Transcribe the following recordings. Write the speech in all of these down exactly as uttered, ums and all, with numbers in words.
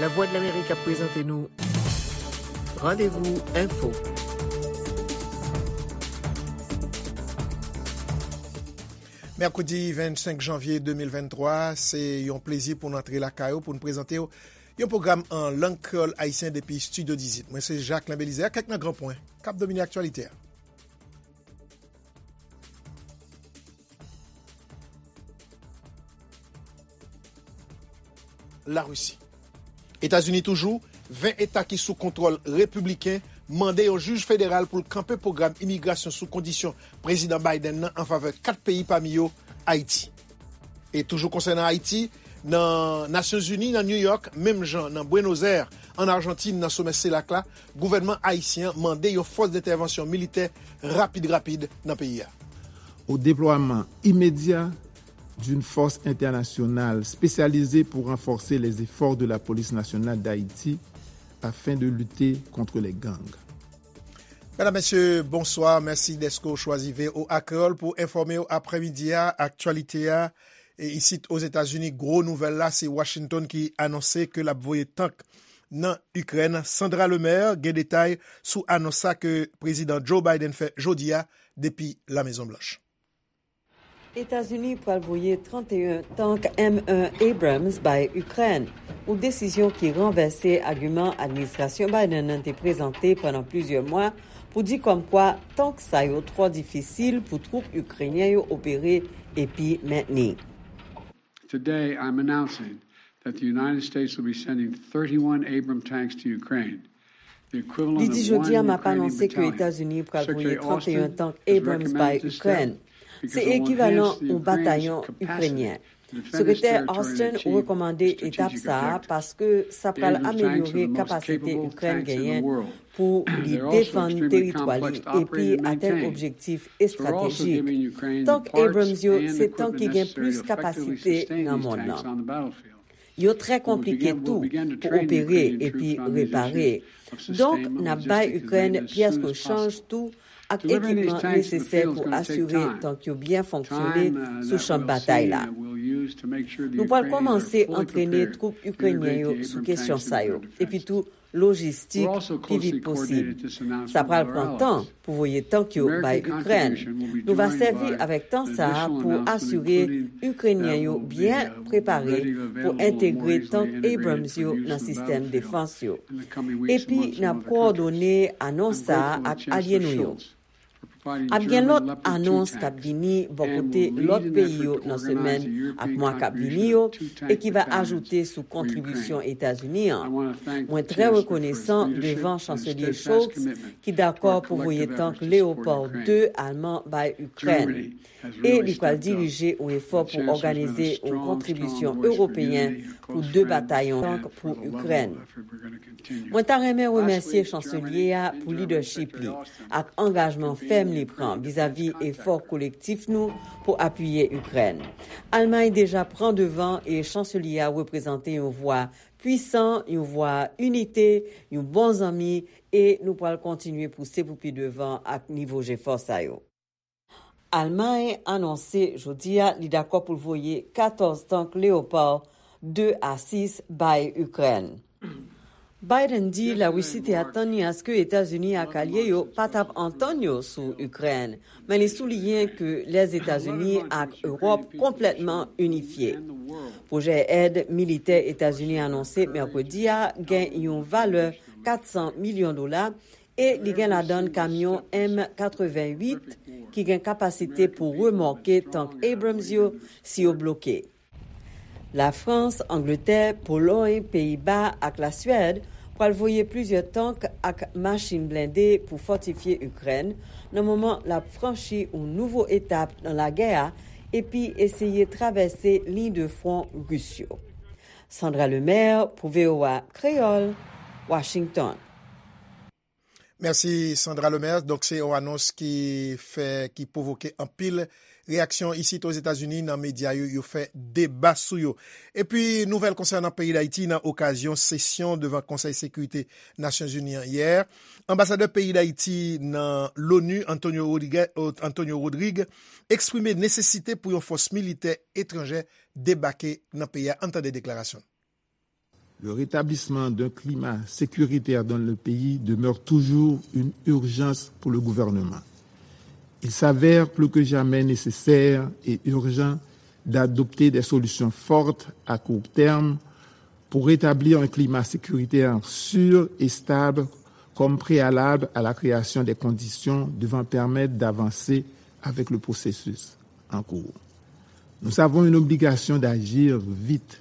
Lavwadlamerik ap prezante nou Randevou Enfo. Mèkredi vennsenk janvye de mil venntwa, se yon plezi pou n antre lakay ou pou n prezante w yon pwogram an lang kreyòl ayisyen depi Estidyo dizuit. Mwen se Jacques Belizaire, kèk nan gran pwen k ap domine aktyalite a. Larisi. Etazini toujou, ven eta ki sou kontwòl repibliken mande yon jij federal pou l kanpe pwogram imigrasyon sou kondisyon Prezidan Biden nan an favè kat peyi, pami yo Ayiti. E toujou konsènan Ayiti, nan Nasyonzini, nan New York, menm jan nan Buenos Aires, an Ajantin, nan somè selak la, gouvènman ayisyen an mande yon fòs dentèvansyon militè rapid rapid nan peyi a. Au déploiement immédiat d'une force internationale spécialisée pour renforcer les efforts de la police nationale d'Haïti afin de lutter contre les gangs. Medam, mesye, bonswa. Mèsi dèske w chwazi V O A Kreyòl pou enfòme w aprèmidi a. Aktyalite a, e isit Ozetazini, gwo nouvèl la, se Washington ki anonse ke l ap voye tank nan Ikrèn. Sandra Lemaire gen detay sou anons sa ke Prezidan Joe Biden fè jodi a depi La Mezon Blanch. Etazini pral voye trannteyen tank M en Abrams bay Ikrèn, yon desizyon ki ranvèse agiman administrasyon Biden nan te prezante pandan plizyè mwa pou di kòmkwa tank sa yo twò difisil pou twoup ikrenyen yo opere epi mentni. Today, I'm announcing that the United States will be sending thirty-one Abrams tanks to Ukraine. Li di, "Jodi a, m ap anonse ke Etazini pral voye trannteyen tank Abrams bay Ikrèn. Se ekivalan yon batayon ikrenyen." Sekretè Austin rekòmande etap sa a paske sa pral amelyore kapasite Ikrèn genyen pou li defann teritwa li epi atenn objektif estratejik. Tank Abrams yo se tank ki gen plis kapasite nan mond lan. Yo trè konplike tou pou opere epi repare. Donk, n ap bay Ikrèn pyès rechanj tou ak ekipman nesesè pou asire tank yo byen fonksyone sou chan batay la. Nou pral kòmanse antrene twoup ikrenyen yo sou kesyon sa yo, epi tou lojistik pi vit posib. Sa pral pran tan pou voye tank yo bay Ikrèn. Nou va sèvi avèk tan sa a pou asire Ikrenyen yo byen prepare pou entegre tank Abrams yo nan sistèm defans yo. Epi, n ap kowòdone anons sa a ak alye nou yo. Ap gen lòt anons k ap vini bò kote lòt peyi yo nan semèn ak mwa k ap vini yo e ki va ajoute sou kontribisyon Etazini an. Mwen trè rekonesan devan Chanselye Scholz ki dakò pou voye tank Leopard de alman bay Ikrèn. E li pral dirije yon efò pou òganize yon kontribisyon ewopeyen pou de batayon tank pou Ikrèn. Mwen ta renmen remèsye Chanselye a pou lidèchip li ak angajman fèm li pran vizavi efò kolektif nou pou apiye Ikrèn. Almay deja pran devan e Chanselye a reprezante yon vwa pwisan, yon vwa inite, yon bon zanmi, e nou pral kontinye pouse pou pi devan ak nivo jefò sa yo. Almay anonse jodi a li dakò pou l voye katòz tank Leopard de a sis bay Ikrèn. Biden di Larisi te atann li aske Etazini ak alye yo pa t ap antann yo sou Ikrèn, men li souliyen ke Lèzetazini ak Ewòp konplètman inifye. Pwojè èd militè Etazini anonse mèkredi a gen yon valè kat san milyon dola e li gen ladan l kamyon M katreventuit ki gen kapasite pou remòke tank Abrams yo si yo bloke. Lafrans, Angletè, Polòy, Peyiba ak Laswèd pral voye plizyè tank ak machin blende pou fòtifye Ikrèn nan moman l ap franchi yon nouvo etap nan lagè a epi eseye travèse liy de fwon ris yo. Sandra Lemaire pou V O A Kreyòl, Washington. Mèsi, Sandra Lemaire. Donk, se yon anons ki fè, ki pwovoke anpil reyaksyon isit Ozetazini nan medya yo, yo fè deba sou yo. Epi, nouvèl konsènan peyi Dayiti nan okazyon sesyon devan Konsèy Sekirite Nasyonzini an yè. Anbasadè peyi Dayiti nan Loni, Antonio Rodriguez, Antonio Rodriguez, eksprime nesesite pou yon fòs militè etranjè debake nan peyi a. Ann tande deklarasyon l. Le rétablissement d'un climat sécuritaire dans le pays demeure toujours une urgence pour le gouvernement. Il s'avère plus que jamais nécessaire et urgent d'adopter des solutions fortes à court terme pour rétablir un climat sécuritaire sûr et stable comme préalable à la création des conditions devant permettre d'avancer avec le processus en cours. Nous avons une obligation d'agir vite.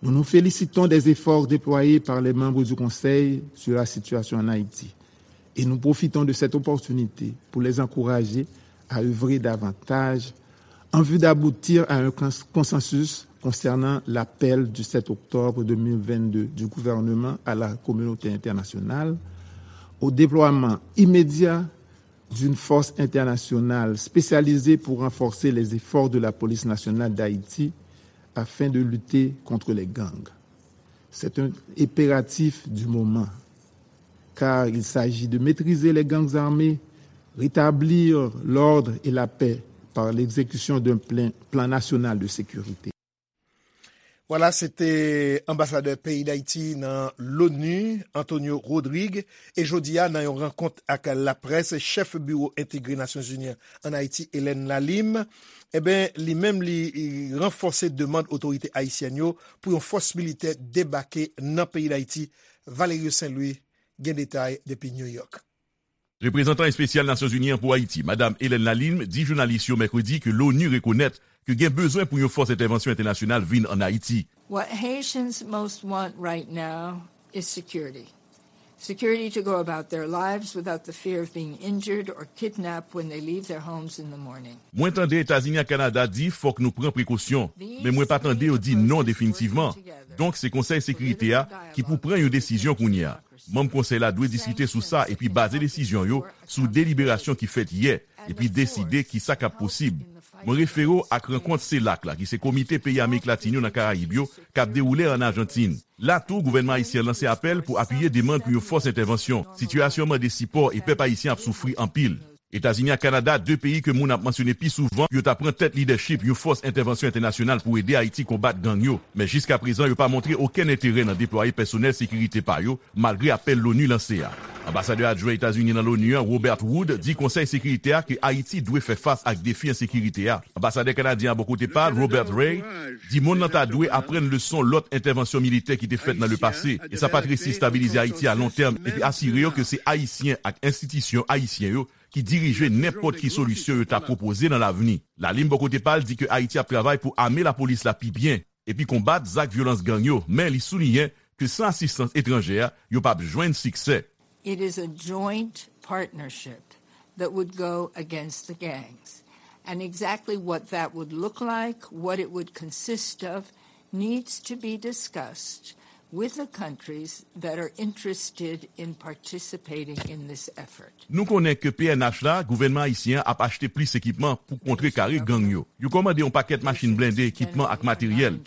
Nous nous félicitons des efforts déployés par les membres du Conseil sur la situation en Haïti et nous profitons de cette opportunité pour les encourager à œuvrer davantage en vue d'aboutir à un cons- consensus concernant l'appel du sept octobre deux mille vingt-deux du gouvernement à la communauté internationale au déploiement immédiat d'une force internationale spécialisée pour renforcer les efforts de la Police nationale d'Haïti afin de lutter contre les gangs. C'est un impératif du moment, car il s'agit de maîtriser les gangs armés, rétablir l'ordre et la paix par l'exécution d'un plein- plan national de sécurité. Vwala, se te anbasadè peyi Dayiti nan l'ONU, Antonio Rodrigue, e jodi a, nan yon rankont ak laprès, chèf Biwo Entegre Nasyonzini an Ayiti, Hélène Lalime, eben, li menm, li ranfòse demann otorite ayisyèn yo pou yon fòs militè debake nan peyi Dayiti. Valerio Saint Louis gen detay depi New York. Reprezantan espesyal Nasyonzini an pou Ayiti, Madam Hélène Lalime, di jounalis yo mèkredi ke l'ONU rekonèt ke gen bezwen pou yon fòs entèvansyon entènasyonal vin ann Ayiti. What Haitians most want right now is security. Security to go about their lives without the fear of being injured or kidnapped when they leave their homes in the morning. Mwen tande Etazini ak Kanada di fòk nou pran prekosyon, men mwen pa tande yo di non definitivman. Donk, se Konsèy Sekirite a ki pou pran yon desizyon kounye a. Manm Konsèy la dwe diskite sou sa epi baze desizyon yo sou deliberasyon ki fèt yè epi deside kisa k ap posib. Mwen refere w ak rankont CELAC la, ki se Komite Peyi Amerik Latin yo nan Karayib yo, k ap dewoule ann Ajantin. La tou, gouvènman ayisyen an lanse apèl pou apiye demann pou yon fòs entèvansyon. Sitiyasyon an mande sipò e pèp ayisyen ap soufri anpil. Etazini ak Kanada, de peyi ke moun ap mansyone pi souvan, yo ta pran tèt lidèchip yon fòs entèvansyon entènasyonal pou ede Ayiti konbat gang yo. Men jiskaprezan, yo pa montre okenn enterè nan deplwaye pèsonèl sekirite pa yo, malgre apèl l'ONU lanse a. Anbasadè adjwen Etazini nan l'ONU an, Robert Wood, di Konsèy Sekirite a ke Ayiti dwe fè fas ak defi ensekirite a. Anbasadè kanadyen an bò kote pa l, Robert Ray, di monn nan ta dwe aprann leson lòt entèvansyon militè ki te fèt nan lepase, e sa pa t resi estabilize Ayiti a lon tèm, epi asire yo ke se Ayisyen ak enstitisyon ayisyen yo ki dirije nenpòt ki solisyon yo ta pwopoze nan lavni. Lalime bò kote pa l di ke Ayiti ap travay pou ame lapolis la pi byen, epi konbat zak vyolans gang yo, men li souliyen ke san asistans etranjè a, yo p ap jwenn siksè. It is a joint partnership that would go against the gangs. And exactly what that would look like, what it would consist of, needs to be discussed with the countries that are interested in participating in this effort. Nou konnen ke P N H la, gouvènman ayisyen an ap achte plis ekipman pou kontrekare gang yo. Yo kòmande yon pakèt machin blende, ekipman ak materyèl.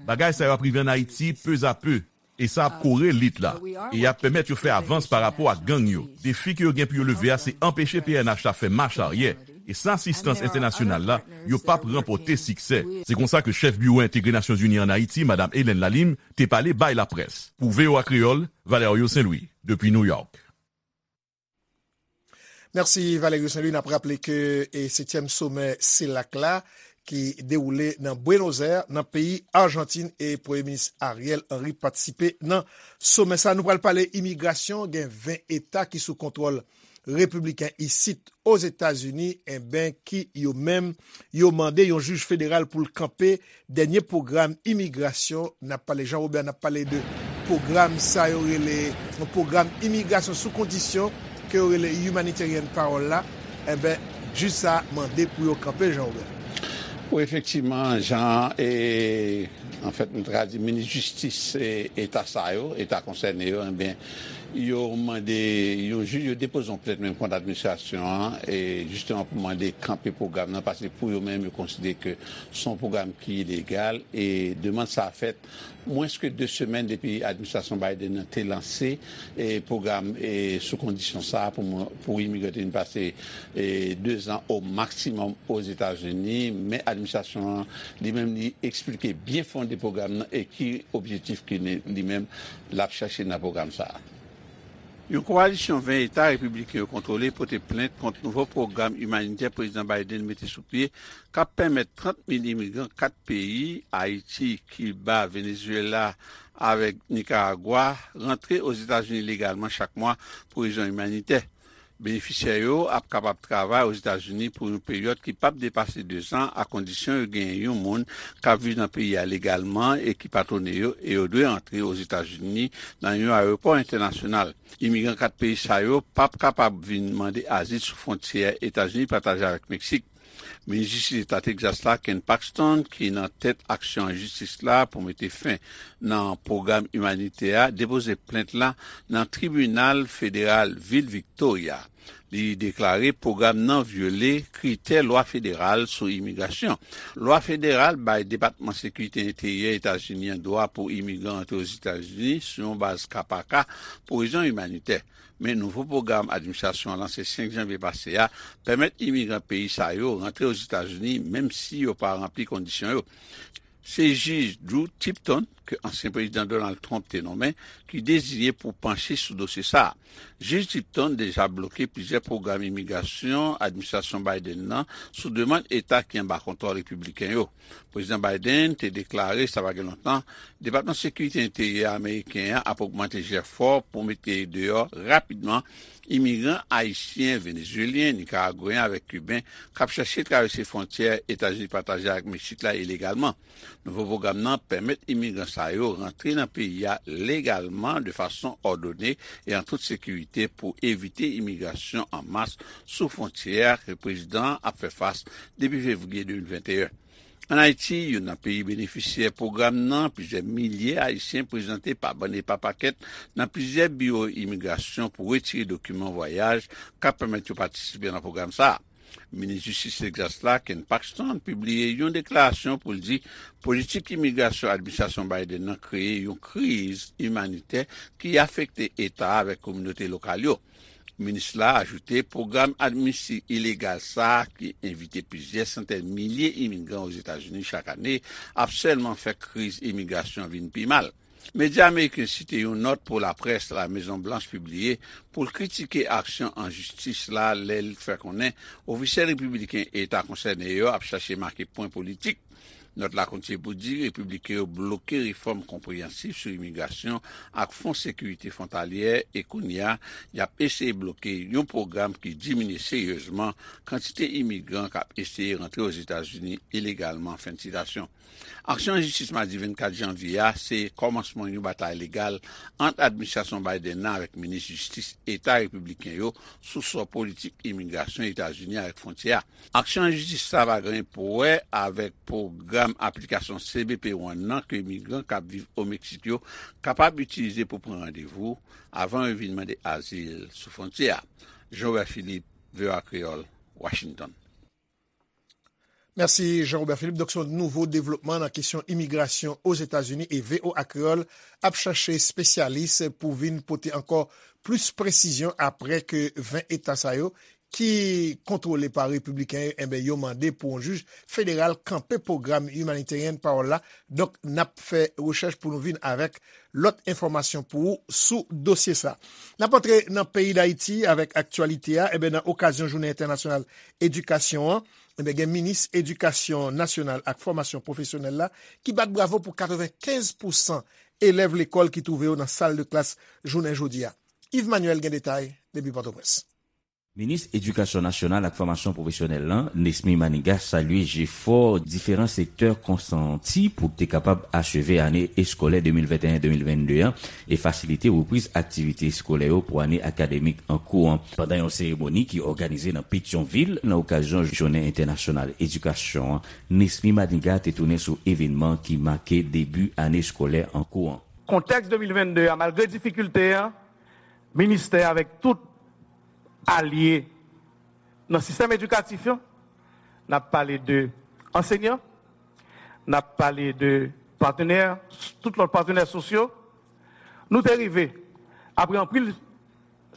Bagay sa yo ap rive ann Ayiti pezape, e sa ap kore lit la, e y ap pèmèt yo fè avans pa rapò ak gang yo. Defi ke yo gen pou yo leve a se anpeche P N H la fè mach aryè, e san asistans entènasyonal la, yo p ap ranpòte siksè. Se konsa ke chèf Biwo Entegre Nasyonzini ann Ayiti, Madam Hélène Lalime, te pale bay laprès. Pou V O A Kreyòl, Valerio Saint Louis, depi New York. Mèsi Valerio Saint Louis. N ap raple ke e setyèm somè CELAC la ki dewoule nan Buenos Aires, nan peyi Ajantin, e Premye Minis Ariel Henry patisipe nan somè sa. Nou pral pale imigrasyon. Gen ven eta ki sou kontwòl repibliken isit Ozetazini, enben, ki yo menm, yo mande yon jij federal pou l kanpe dènye pwogram imigrasyon. N ap pale, Jean Robert, n ap pale de pwogram sa yo rele yon pwogram imigrasyon sou kondisyon ke yo rele humanitarian parole la. Enben, jij sa mande pou yo kanpe, Jean Robert. Wi, efektivman, jan e anfèt, nou ta ka di minis jistis e eta sa yo, eta konsène yo, enben, Yo mande yon jij, yo depoze yon plent menm kont administrasyon an, e jisteman pou mande kanpe pwogram nan, paske pou yo menm, yo konsidere ke se yon pwogram ki ilegal, e demann sa a fèt mwens ke de semèn depi administrasyon Biden nan te lanse, e pwogram, e sou kondisyon sa a pou moun, pou imigran te vin pase, e dezan o maksimòm Ozetazini, men administrasyon an, li menm, li eksplike byen fonde pwogram nan e ki objektif ke li, li menm, l ap chache nan pwogram sa a. Yon kowalisyon ven eta repibliken yo kontwole pote plent kont nouvo pwogram imanitè Prezidan Biden mete sou pye k ap pèmèt trant mil imigran kat peyi, Ayiti, Kiba, Venezuela avèk Nikaragwa, rantre Ozetazini legalman chak mwa pou rezon imanitè. Benefisyè yo ap kapab travay Ozetazini pou yon peryòd ki p ap depase dezan, akondisyon yo genyen yon moun k ap viv nan peyi a legalman e ki patwone yo, e yo dwe antre Ozetazini nan yon ayewopò entènasyonal. Imigran kat peyi sa yo p ap kapab vin mande azil sou fwontyè Etazini pataje avèk Meksik. Minis Jistis Eta Tegzas la, Ken Paxton, ki nan tèt aksyon an jistis la pou mete fen nan pwogram imanitè a, depoze plent la nan tribinal federal vil Victoria. Li deklare pwogram nan vyole kritè lwa federal sou imigrasyon. Lwa federal bay Depatman Sekirite Enteryè Etazini an dwa pou imigran antre Ozetazini sou yon baz ka pa ka pou rezon imanitè. Men nouvo pwogram administrasyon an lanse senk janvye pase a pèmèt imigran peyi sa yo rantre Ozetazini menm si yo pa ranpli kondisyon yo. Se jij Drew Tipton, ke ansyen prezidan Donald Trump te nonmen, ki deziye pou panche sou dosye sa a. Jij Tipton deja bloke plizyè pwogram imigrasyon administrasyon Biden nan sou demann eta ki anba kontwòl repibliken yo. Prezidan Biden te deklare, sa pa gen lontan, Depatman Sekirite Enteryè ameriken an ap ogmante jefò pou mete deyò rapidman imigran ayisyen, venezuelyen, nikaragweyen avèk kiben k ap chèche travèse fwontyè Etazini pataje ak Meksik la ilegalman. Nouvo pwogram nan pèmèt imigran sa yo rantre nan peyi a legalman, de fason òdone e an tout sekirite, pou evite imigrasyon an mas sou fwontyè a ke prezidan an ap fè fas depi fevriye de mil venteyen. Ann Ayiti, youn nan peyi benefisyè pwogram nan, plizyè milye Ayisyen prezante pa bann e pa pakèt nan plizyè biwo imigrasyon pou retire dokiman vwayaj k ap pèmèt yo patisipe nan pwogram sa a. Minis Jistis Tegzas la, Ken Paxton, pibliye yon deklarasyon pou l di politik imigrasyon administrasyon Biden nan kreye yon kriz imanitè ki afekte eta a avèk kominote lokal yo. Minis la ajoute pwogram amnisti ilegal sa a, ki envite plizyè santèn milye imigran Ozetazini chak ane, ap sèlman fè kriz imigrasyon vin pi mal. Medya ameriken site yon nòt pou laprès La Mezon Blanch pibliye pou l kritike aksyon an jistis la, lè l fè konnen ofisyèl repibliken eta konsène yo ap chache make pwen politik. Nòt la kontinye pou di repibliken yo bloke refòm konpreyansif sou imigrasyon ak fon sekirite fwontalyè, e kounye a, y ap eseye bloke yon pwogram ki diminye seryezman kantite imigran k ap eseye rantre Ozetazini ilegalman, fen de sitasyon. Aksyon an jistis madi vennkat janvye a se kòmansman yon batay legal ant administrasyon Biden nan avèk minis jistis eta repibliken yo sou sò politik imigrasyon Etazini avèk fwontyè a. Aksyon an jistis sa pa gen anyen pou wè avèk pwogram aplikasyon C B P One nan ke imigran k ap viv o Meksik yo kapab itilize pou pran randevou avan yo vin mande azil sou fwontyè a. Jean Robert Philippe, V O A Kreyòl, Washington. Mèsi Jean Robert Philippe. Donk, se yon nouvo devlopman nan kesyon imigrasyon Ozetazini e V O A Kreyòl ap chache espesyalis pou vin pote ankò plis presizyon apre ke ven eta sa yo ki kontwole pa repibliken yo, enben, yo mande pou yon jij federal kanpe pwogram Humanitarian Parole la. Donk, n ap fè rechèch pou nou vin avèk lòt enfòmasyon pou ou sou dosye sa. N ap antre nan peyi Dayiti avèk aktyalite a. Enben, nan okazyon Jounen Entènasyonal Edikasyon an, enben, gen minis Edikasyon Nasyonal ak Fòmasyon Pwofesyonèl la ki bat bravo pou katrevenkenz pousan elèv lekòl ki twouve yo nan sal de klas jounen jodi a. Yves Manuel gen detay depi Pòtoprens. Minis Edikasyon Nasyonal ak Fòmasyon Pwofesyonèl lan, Nesmy Manigat, salye jefò diferan sektè konsanti pou te kapab acheve ane eskolè de mil venteyen de mil vennde an e fasilite repriz aktivite eskolè yo pou ane akademik an kou an. Pandan yon seremoni ki òganize nan Petyonvil nan okazyon Jounen Entènasyonal Edikasyon an, Nesmy Manigat te tounen sou evènman ki make debi ane eskolè an kou an. Kontèks de mil vennde a, malgre difikilte an, Ministè avèk tout alye nan sistèm edikatif yo, n ap pale de ansegnan, n ap pale de patnè, tout lòt patnè sosyo. Nou te rive, apre anpil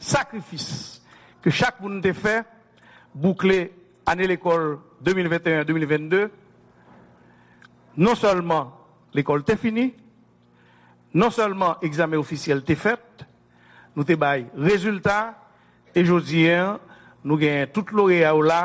sakrifis ke chak moun te fè, boukle ane lekòl de mil venteyen de mil vennde. Non sèlman lekòl te fini, non sèlman egzamen ofisyèl te fèt, nou te bay rezilta, e jodi a, nou genyen tout loreya yo la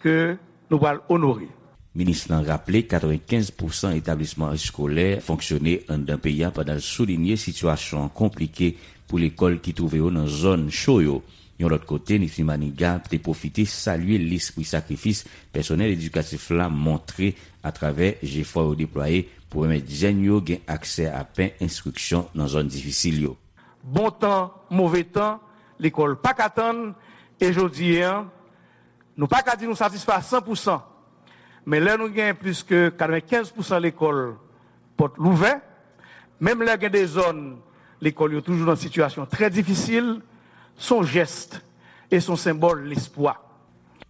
ke nou pral onore. Minis lan raple, katrevenkenz pousan etablisman eskolè fonksyone anndan peyi a, pandan l soulinye sitiyasyon an konplike pou lekòl ki twouve yo nan zòn cho yo. Yon lòt kote, Nifi Maniga te pwofite salye lespri sakrifis pèsonèl edikatif la montre atravè jefò yo deplwaye pou pèmèt jèn yo gen aksè a pen enstriksyon nan zòn difisil yo. Bon tan, move tan, lekòl pa ka tann, e jodi a, nou pa ka di nou satisfè a san pousan. Men lè nou gen plis ke katrevenkenz pousan lekòl pòt louvè, menm lè gen de zòn lekòl yo toujou nan sitiyasyon trè difisil, se yon jès e se yon senbòl lespwa.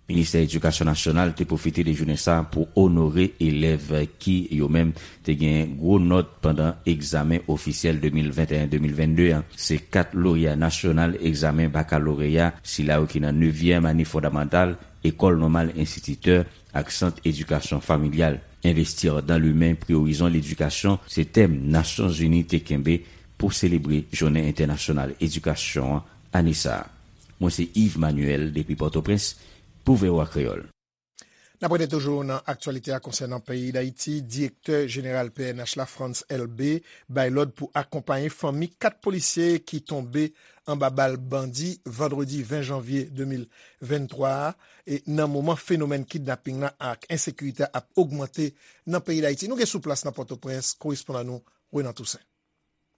Ministè Edikasyon Nasyonal te pwofite de jounen sa a pou onore elèv ki, yo menm, te gen gwo nòt pandan egzamen ofisyèl de mil venteyen de mil vennde a. Se kat loreya nasyonal egzamen bakaloreya, sila yo ki nan nevyèm ane fondamantal, ekòl nòmal enstititè ak sant edikasyon familyal. Investir dans l'humain, priorizons l'éducation, se tèm Nasyonzini te kenbe pou selebre Jounen Entènasyonal Edikasyon an ane sa a. Mwen se Yves Manuel depi Pòtoprens pou V O A Kreyòl. N ap rete toujou nan aktyalite a konsènan peyi Dayiti. Direktè jeneral P N H la, Frantz Elbé, bay lòd pou akonpaye fanmi kat polisye ki tonbe anba bal bandi vandredi ven janvye de mil venntwa a, e nan moman fenomèn kidnaping la ak ensekirite a ap ogmante nan peyi Dayiti. Nou gen sou plas nan Pòtoprens korespondan nou, Renan Toussaint.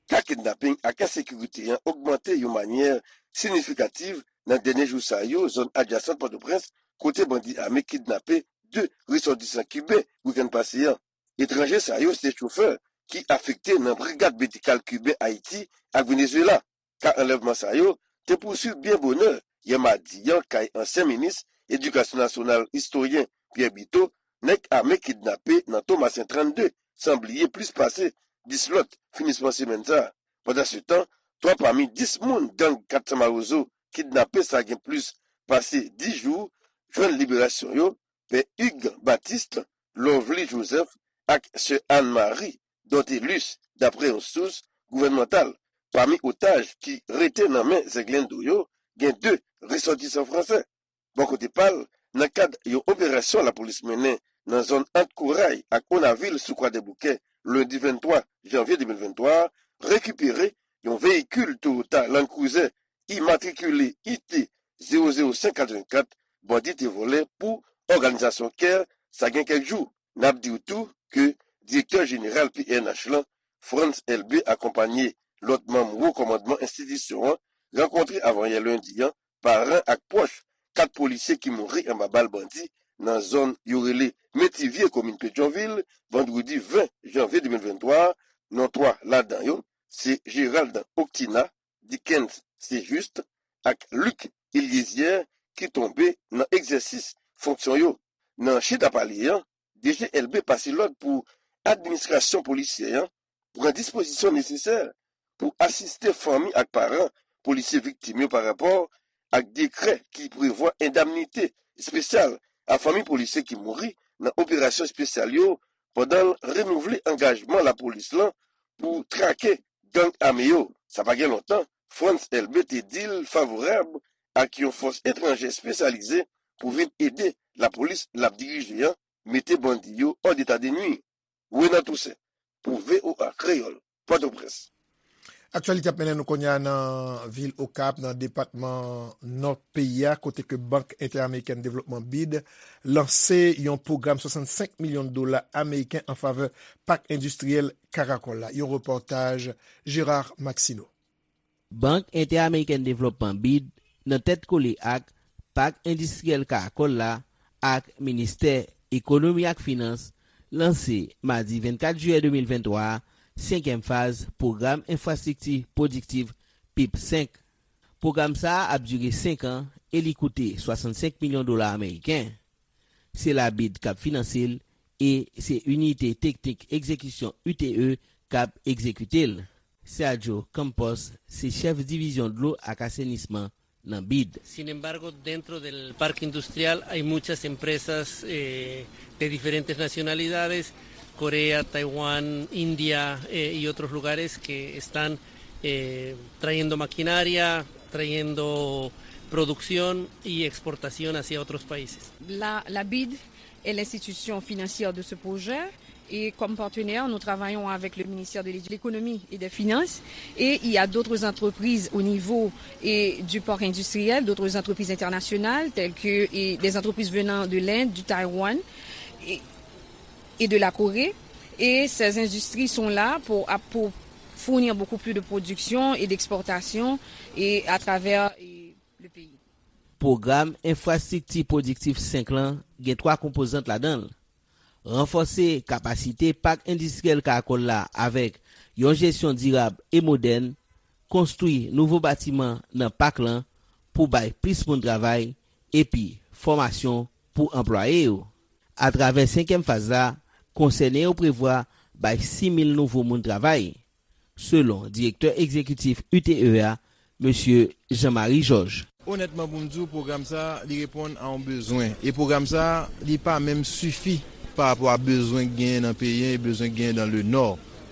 Ka kidnaping ak ensekirite an ogmante yon manyè siyifikatif nan dènye jou sa yo, zòn adjasan Pòtoprens, kote bandi ame kidnape de resòtisan kiben wikenn pase an. Etranje sa yo se chofè ki afekte nan Brigad Medikal Kiben Ayiti ak Venezuela. Ka anlèvman sa yo te pouswiv byen bonè yè madi an kay ansyen minis Edikasyon Nasyonal, istoryen Pierre Biteau, nèg ame kidnape nan Tomasen trannde, san bliye plis pase dis lòt finisman semèn sa a. Pandansetan, twa pami dis moun gang kat san Mawozo kidnape sa gen plis pase dis jou jwenn liberasyon yo, Pè Hugues Baptiste, Lovely Joseph ak Sè Anne Marie Dortelus, daprè yon sous gouvènmantal. Pami otaj ki rete nan men zenglendo yo, gen de resòtisan fransè. Bò kote pa l, nan kad yon operasyon lapolis mennen nan zòn ant Koray ak Onavil sou Kwadèboukè, lendi venntwa janvye de mil venntwa a, rekipere yon veyikil Toyota Land Cruiser imatrikile I T zewo zewo senk katrevenkat bandi te vòlè pou òganizasyon CARE, sa gen kèk jou. N ap di w tou ke direktè jeneral P N H lan, Frantz Elbé, akonpanye lòt manm wo kòmandman enstitisyon an, rankontre avanyè lendi an paran ak pwòch kat polisye ki mouri anba bal bandi nan zòn yo rele Metivye, komin Petyonvil, vandredi ven janvye de mil venntwa a. Non twa ladan yo se Gérald Octina, Dickens Saint-Juste ak Luc Eliézier ki tonbe nan egzèsis fonksyon yo. Nan chita pale an, D G Elbé pase lòd pou administrasyon polisyè an pran dispozisyon nesesè pou asiste fanmi ak paran polisye viktim yo parapò ak dekrè ki prevwa endamnite espesyal a fanmi polisye ki mouri nan operasyon espesyal yo, pandan l renouvle angajman lapolis lan pou trake gang ame yo. Sa pa gen lontan, Frantz Elbé te di l favorab ak yon fòs etranjè espesyalize pou vin ede lapolis l ap dirije an mete bandi yo hors d'état de nuire. Renan Toussaint, pou V O A Kreyòl, Pòtoprens. Aktyalite ap mennen nou kounye a nan vil Okap, nan depatman Nò peyi a, kote ke Bank Entèamerikèn Devlopman, bid, lanse yon pwogram swasannsenk milyon dola ameriken an favè pak endistriyèl Karakòl la. Yon repòtaj Gérard Maxineau. Bank Entèamerikèn Devlopman, bid, nan tèt kole ak Pak Endistriyèl Karakòl la ak Ministè Ekonomi ak Finans, lanse madi vennkat jiyè de mil venntwa a senkyèm faz Pwogram Enfrastrikti Pwodiktif, pip senk. Pwogram sa a ap dire senk an e li koute swasannsenk milyon dola ameriken. Se la bid k ap finanse l e se Inite Teknik Egzekisyon U T E k ap egzekite l. Sergio Campos se chèf divizyon dlo ak asenisman nan bid. Sin embargo, dentro del parque industrial hay muchas empresas eh, de diferentes nacionalidades, Corea, Taiwán, India eh, y otros lugares que están eh, trayendo maquinaria, trayendo producción y exportación hacia otros países. La, la bid est l'institution financière de ce projet. Et comme partenaire, nous travaillons avec le ministère de l'Édu- l'économie et des finances. Et il y a d'autres entreprises au niveau et du parc industriel, d'autres entreprises internationales, telles que et des entreprises venant de l'Inde, du Taïwan et, et de la Corée. Et ces industries sont là pour, pour fournir beaucoup plus de production et d'exportation et à travers et le pays. Pwogram enfrastrikti pwodiktif senk lan gen twa konpozant ladan l. Ranfòse kapasite pak endistriyèl Karakòl la avèk yon jesyon dirab e modèn, konstwi nouvo batiman nan pak lan pou bay plis moun travay, epi fòmasyon pou anplwaye yo. Atravè senkyèm faz la, konsène yo prevwa bay sis mil nouvo moun travay, selon direktè egzekitif U T E a, mesye Jean Marie Georges. Onètman, pou m di w, pwogram sa a, li reponn a yon bezwen. E pwogram sa a, li pa menm sifi pa rapò a bezwen k genyen nan peyi an e bezwen k genyen nan le nò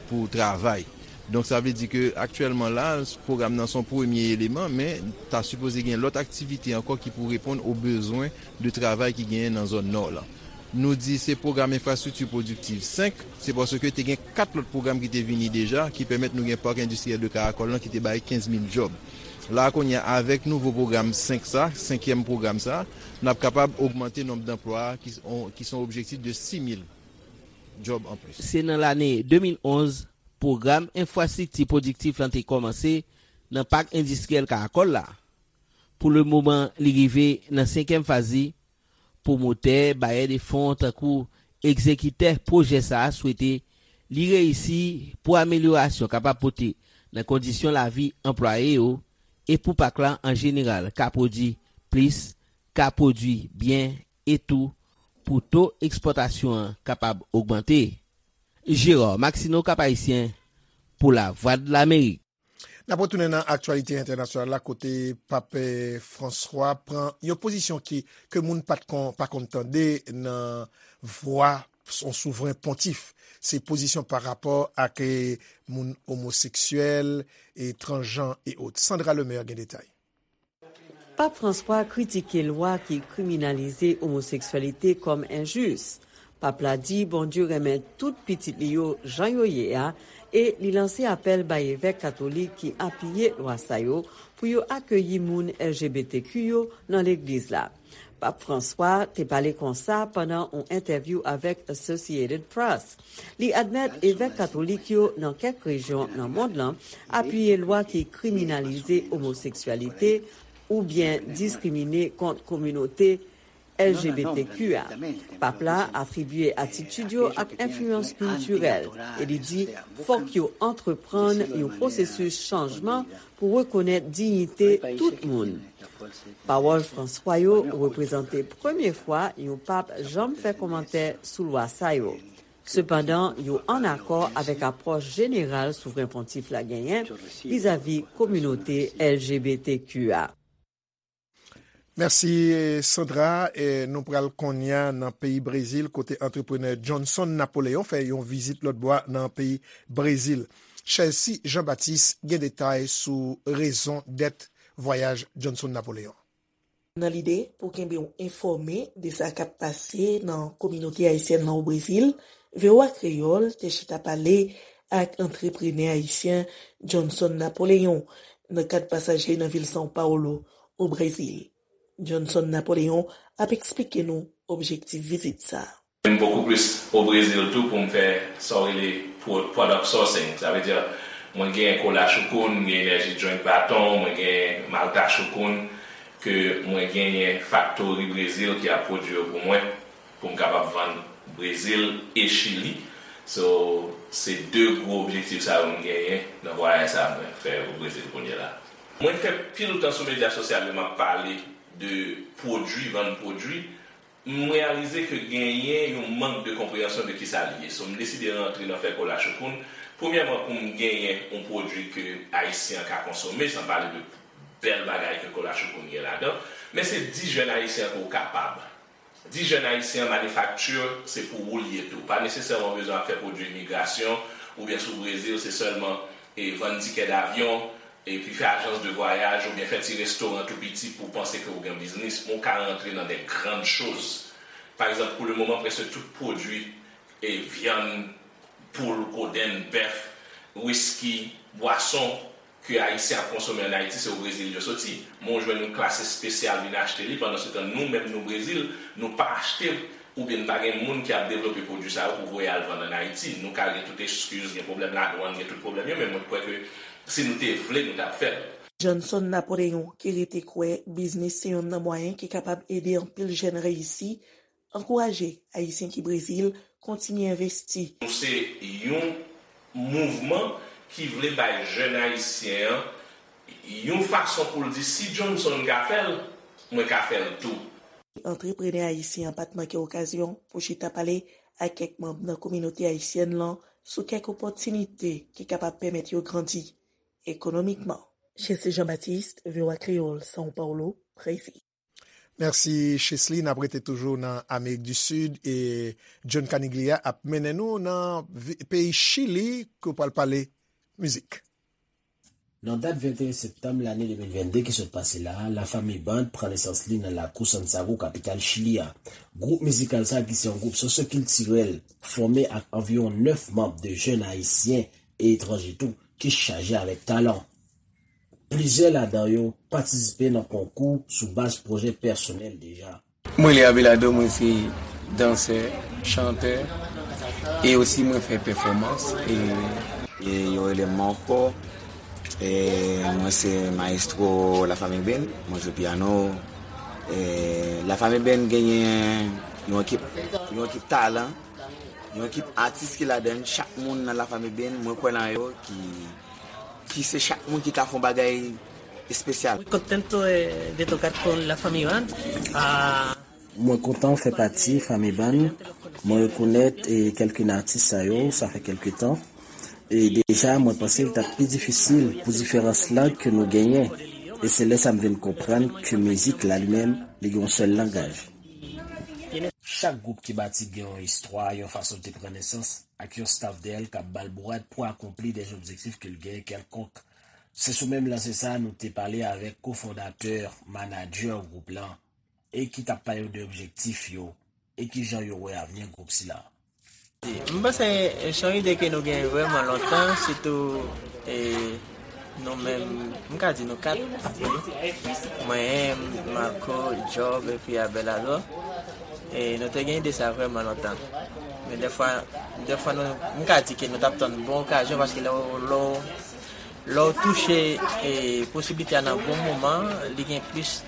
pou travay. Donk, sa vle di ke aktyèlman la, pwogram nan se yon premye eleman, men ta sipoze gen lòt aktivite ankò ki pou reponn o bezwen de travay ki genyen nan zòn nò lan. Nou di se pwogram enfrastrikti pwodiktiv senk, se paske te gen kat lòt pwogram ki te vini deja, ki pèmèt nou gen Park Endistriyèl de Karakòl lan ki te bay kenz mil djòb. La a kounye a, avèk nouvo pwogram senk sa, senkyèm pwogram sa, n ap kapab ogmante nonb danplwa ki, ki se yon objektif de sis mil djòb anplis. Se nan lane de mil onz, pwogram enfrastrikti pwodiktif lan te kòmanse nan Pak Endistriyèl Karakòl la. Pou lemoman, li rive nan senkyèm faz li. Pwomotè, bayè de fon tankou egzekitè pwojè sa a swete li reyisi pou amelyorasyon kapab pote nan kondisyon lavi anplwaye yo e pou pak la an jeneral ka pwodui plis, ka pwodui byen e tou pou to ekspòtasyon an kapab ogmante. Gérard Maxineau, Cap Haïtien, pou Lavwadlamerik. N ap retounen nan aktyalite entènasyonal la, kote Pap, eh, Franswa pran yon pozisyon ki, ke moun pa t kon, pa konn tande nan vwa yon souvren pontif. Se pozisyon pa rapò ak, eh, moun omoseksyèl, e transjan e ot. Sandra Lemaire gen detay. Pap Franswa kritike lwa ki kriminalize omoseksyalite kòm enjis. Pap la di Bondye renmen tout pitit li yo jan yo ye a, e li lanse apèl bay evèk katolik ki apiye lwa sa yo pou yo akeyi moun L G B T Q yo nan legliz la. Pap Franswa te pale konsa pandan yon entèvyou avèk Associated Press. Li admèt evèk katolik yo nan kèk rejyon nan mond lan apiye lwa ki kriminalize omoseksyalite oubyen diskrimine kont kominote L G B T Q a. Pap la atribye atitid yo ak enfliyans kiltirèl e li di fòk yo antreprann yon pwosesis chanjman pou rekonèt diyite tout moun. Pawòl Franswa yo reprezante premye fwa yon pap janm fè kòmantè sou lwa sa yo. Sepandan, yo ann akò avèk apwòch jeneral Souvren Pontif la genyen vizavi kominote L G B T Q a. Mèsi, Sandra. E nou pral kounye a nan peyi Brezil, kote antreprenè Johnson Napoléon fè yon vizit lòtbò a nan peyi Brezil. Chelsea Jean Baptiste gen detay sou rezon dèt vwayaj Johnson Napoléon. Nan lide pou kenbe w enfòme de sa k ap pase nan kominote ayisyèn nan o Brezil, V O A Kreyòl te chita pale ak antreprenè ayisyen Johnson Napoléon nan kad pasaj li nan vil São Paulo, o Brezil. Johnson Napoléon ap eksplike nou objektif vizit sa a. M bokou plis o Brezil tou pou m fè sa w rele pro-, product sourcing. Sa vle di, mwen gen kola Choukoun, m gen Energy Drink Baton, mwen gen Malta Choukoun, ke mwen genyen faktori Brezil ki ap pwodui yo pou mwen, pou m kapab vann Brezil e Chili. So, se de gwo objektif sa yo m genyen nan vwayaj sa a mwen fè o Brezil kounye a la. Mwen fè pil tan sou medya sosyal yo, m ap pale de pwodui, vann pwodui. M reyalize ke genyen yon mank de konpreyansyon de kisa li ye. So, m deside rantre nan fè Kola Choukoun. Premyèman, pou m genyen yon pwodui ke Ayisyen an ka konsome, san pale de bèl bagay ke Kola Choukoun gen ladan. Men se di jèn Ayisyen an ke w kapab. Di jèn Ayisyen an, manifakti, se pou ou l ye tou. Pa nesesèman bezwen ap fè pwodui imigrasyon, oubyen si w Brezil, se sèlman e vann tikè davyon, epi fè ajans de vwayaj oubyen fè ti restoran tou piti pou w panse ke w gen biznis, men w ka rantre nan de grann choz. Pa egzanp, pou le moman, prèske tout pwodui e vyann, poul, kodenn, bèf, wiski, bwason ke Ayisyen ap konsome ann Ayiti, se o Brezil yo soti. Men w jwenn yon klas espesyal vin achte li, pandansetan nou menm nou Brezil, nou pa achte oubyen n pa gen moun ki ap devlope pwodui sa yo pou voye al vann ann Ayiti. Nou ka gen tout eskiz, gen pwoblèm ladwann, gen tout pwoblèm yo, men mwen kwè ke si nou te vle, nou t ap fè l. Johnson Napoleon, ki rete kwè biznis se yonn nan mwayen ki kapab ede anpil jèn reyisi, ankouraje Ayisyen ki Brezil kontinye envesti. Nou se yon mouvman ki vle bay jèn Ayisyen an yon fason pou l di, si Johnson ka fè l, mwen ka fè l tou. Antreprenè ayisyen an pa t manke okazyon pou chita pale ak kèk manm nan kominote ayisyèn lan sou kèk opòtinite ki kapab pèmèt yo grandi ekonomikman. Chesly Jean-Baptiste, V O A Kreyòl, São Paulo, Brezil. Mèsi, Chesly. N ap rete toujou nan Amerik di Sid e John Caniglia ap mennen nou nan vi- peyi Chili, ke w pral pale mizik. Nan dat venteyen septanm lane de mil vennde ki sot pase la a, Lafanmi Band pran nesans li nan lakou Santiago, kapital Chili a. Gwoup mizikal sa a, ki se yon gwoup sosyokiltirèl fòme ak anviwon nèf manm de jèn ayisyen e etranje tou, ki chaje avèk talan. Plizyè ladan yo patisipe nan konkou sou baz pwojè pèsonèl deja. Mwen rele Abelardo, mwen se dansè, chantè, e osi mwen fè pèfòmans. E yo rele m Marco, e mwen se mayestwo Lafanmi Band, mwen jwe pyano. E Lafanmi Band genyen yon ekip, yon ekip talan, yon ekip atis ki ladan l. Chak moun nan Lafanmi Band, mwen kwè nan yo, ki ki se chak moun ki ka fè yon bagay espesyal. Muy contento de, de tocar con la Family Band. Ah. Mwen kontan fè pati Fanmi Band. Mwen rekonèt e kèlke nan atis sa yo, sa fè kèlke tan. E deja, mwen panse l t ap pi difisil pou diferans lang ke nou genyen. E se lè sa m vin konprann ke mizik la li menm, li gen yon sèl langaj. Chak gwoup ki bati gen yon istwa, yon fason l te pran nesans, ak yon staf dèyè l k ap ba l bourad pou akonpli dè objektif ke l genyen kèlkonk. Se sou menm lanse sa a nou te pale avèk kofondatè, manadjè gwoup lan, e ki t ap pale nou de objektif yo e kijan yo wè avni gwoup sila. M panse se yon ide ke nou gen vrèman lontan, sitou e, nou menm, m ka di nou kat, wi. Mwen, Marco, Job, epi Abelardo. E nou te gen ide sa vrèman lontan. Men dèfwa, dèfwa nou, m ka di ke nou t ap tann bon okazyon, paske lè w, lè w, lè w touche e, posiblite a nan bon moman, li gen plis,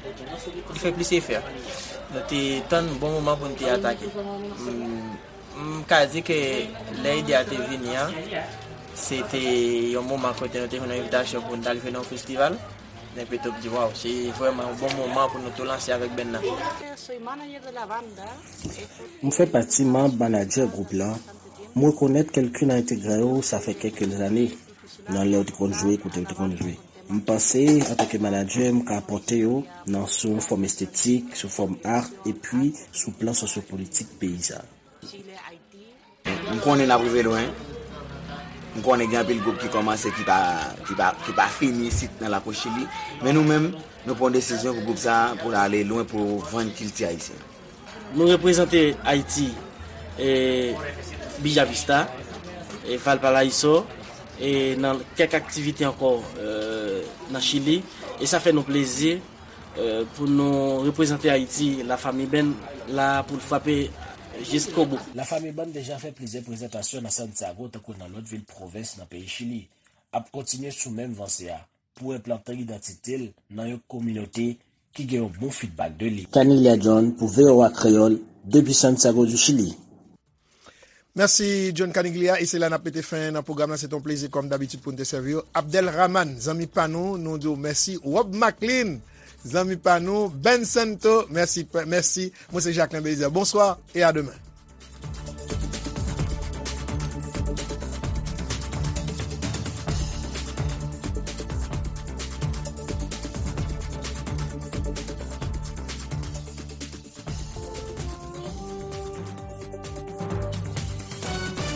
li fè plis efè. Nou te tann bon moman pou nou te atake. M, M ka di ke lè ide a te vini an, se te yon moman kote nou te jwenn yon envitasyon pou n t al jwe nan yon festival. Epi tou m di, waw, se vrèman yon bon moman pou nou tou lanse avèk band nan. M fè pati manm manadjè gwoup lan. M rekonèt kèlke nan entegran yo sa fè kèk zane nan lè yo te konn jwe, kote yo te konn jwe. M panse, antanke manadjè, m ka apòte yo nan sou yon fòm estetik, sou fòm art, epi sou plan sosyopolitik peyi sa. M konnen n ap rive lwen. M konnen gen anpil gwoup ki kòmanse ki pa, ki pa, ki pa fini isit nan lakou Chili. Men nou menm, nou pran yon desizyon pou gwoup sa a, pou l ale lwen, pou vann kilti ayisyen. Nou reprezante Ayiti, e, Bella Vista, e, Valparaíso, e, nan kèk aktivite ankò, e, nan Chili. E sa fè nou plezi. Pou nou reprezante Ayiti, Lafanmi Band la pou l frape jiskobou. Lafanmi Band deja fè plizyè prezantasyon nan Santiago tankou nan lòt vil pwovens nan peyi Chili, ap kontinye sou menm vanse a pou enplante idantite l nan yon kominote ki gen yon bon fidbak de li. Caniglia John pou V O A Kreyòl, depi Santiago du Chili. Mèsi John Caniglia, e se la n ap mete fen nan pwogram nan. Se te yon plezi kòm dabitid pou n te sèvi w. Abdel Rahman, zanmi pa nou, nou di w mèsi. Rob Maclean, zanmi pa nou. Ben Santo, mèsi, mèsi. Mwen se Jacquelin Belizaire. Bonswa e a demen.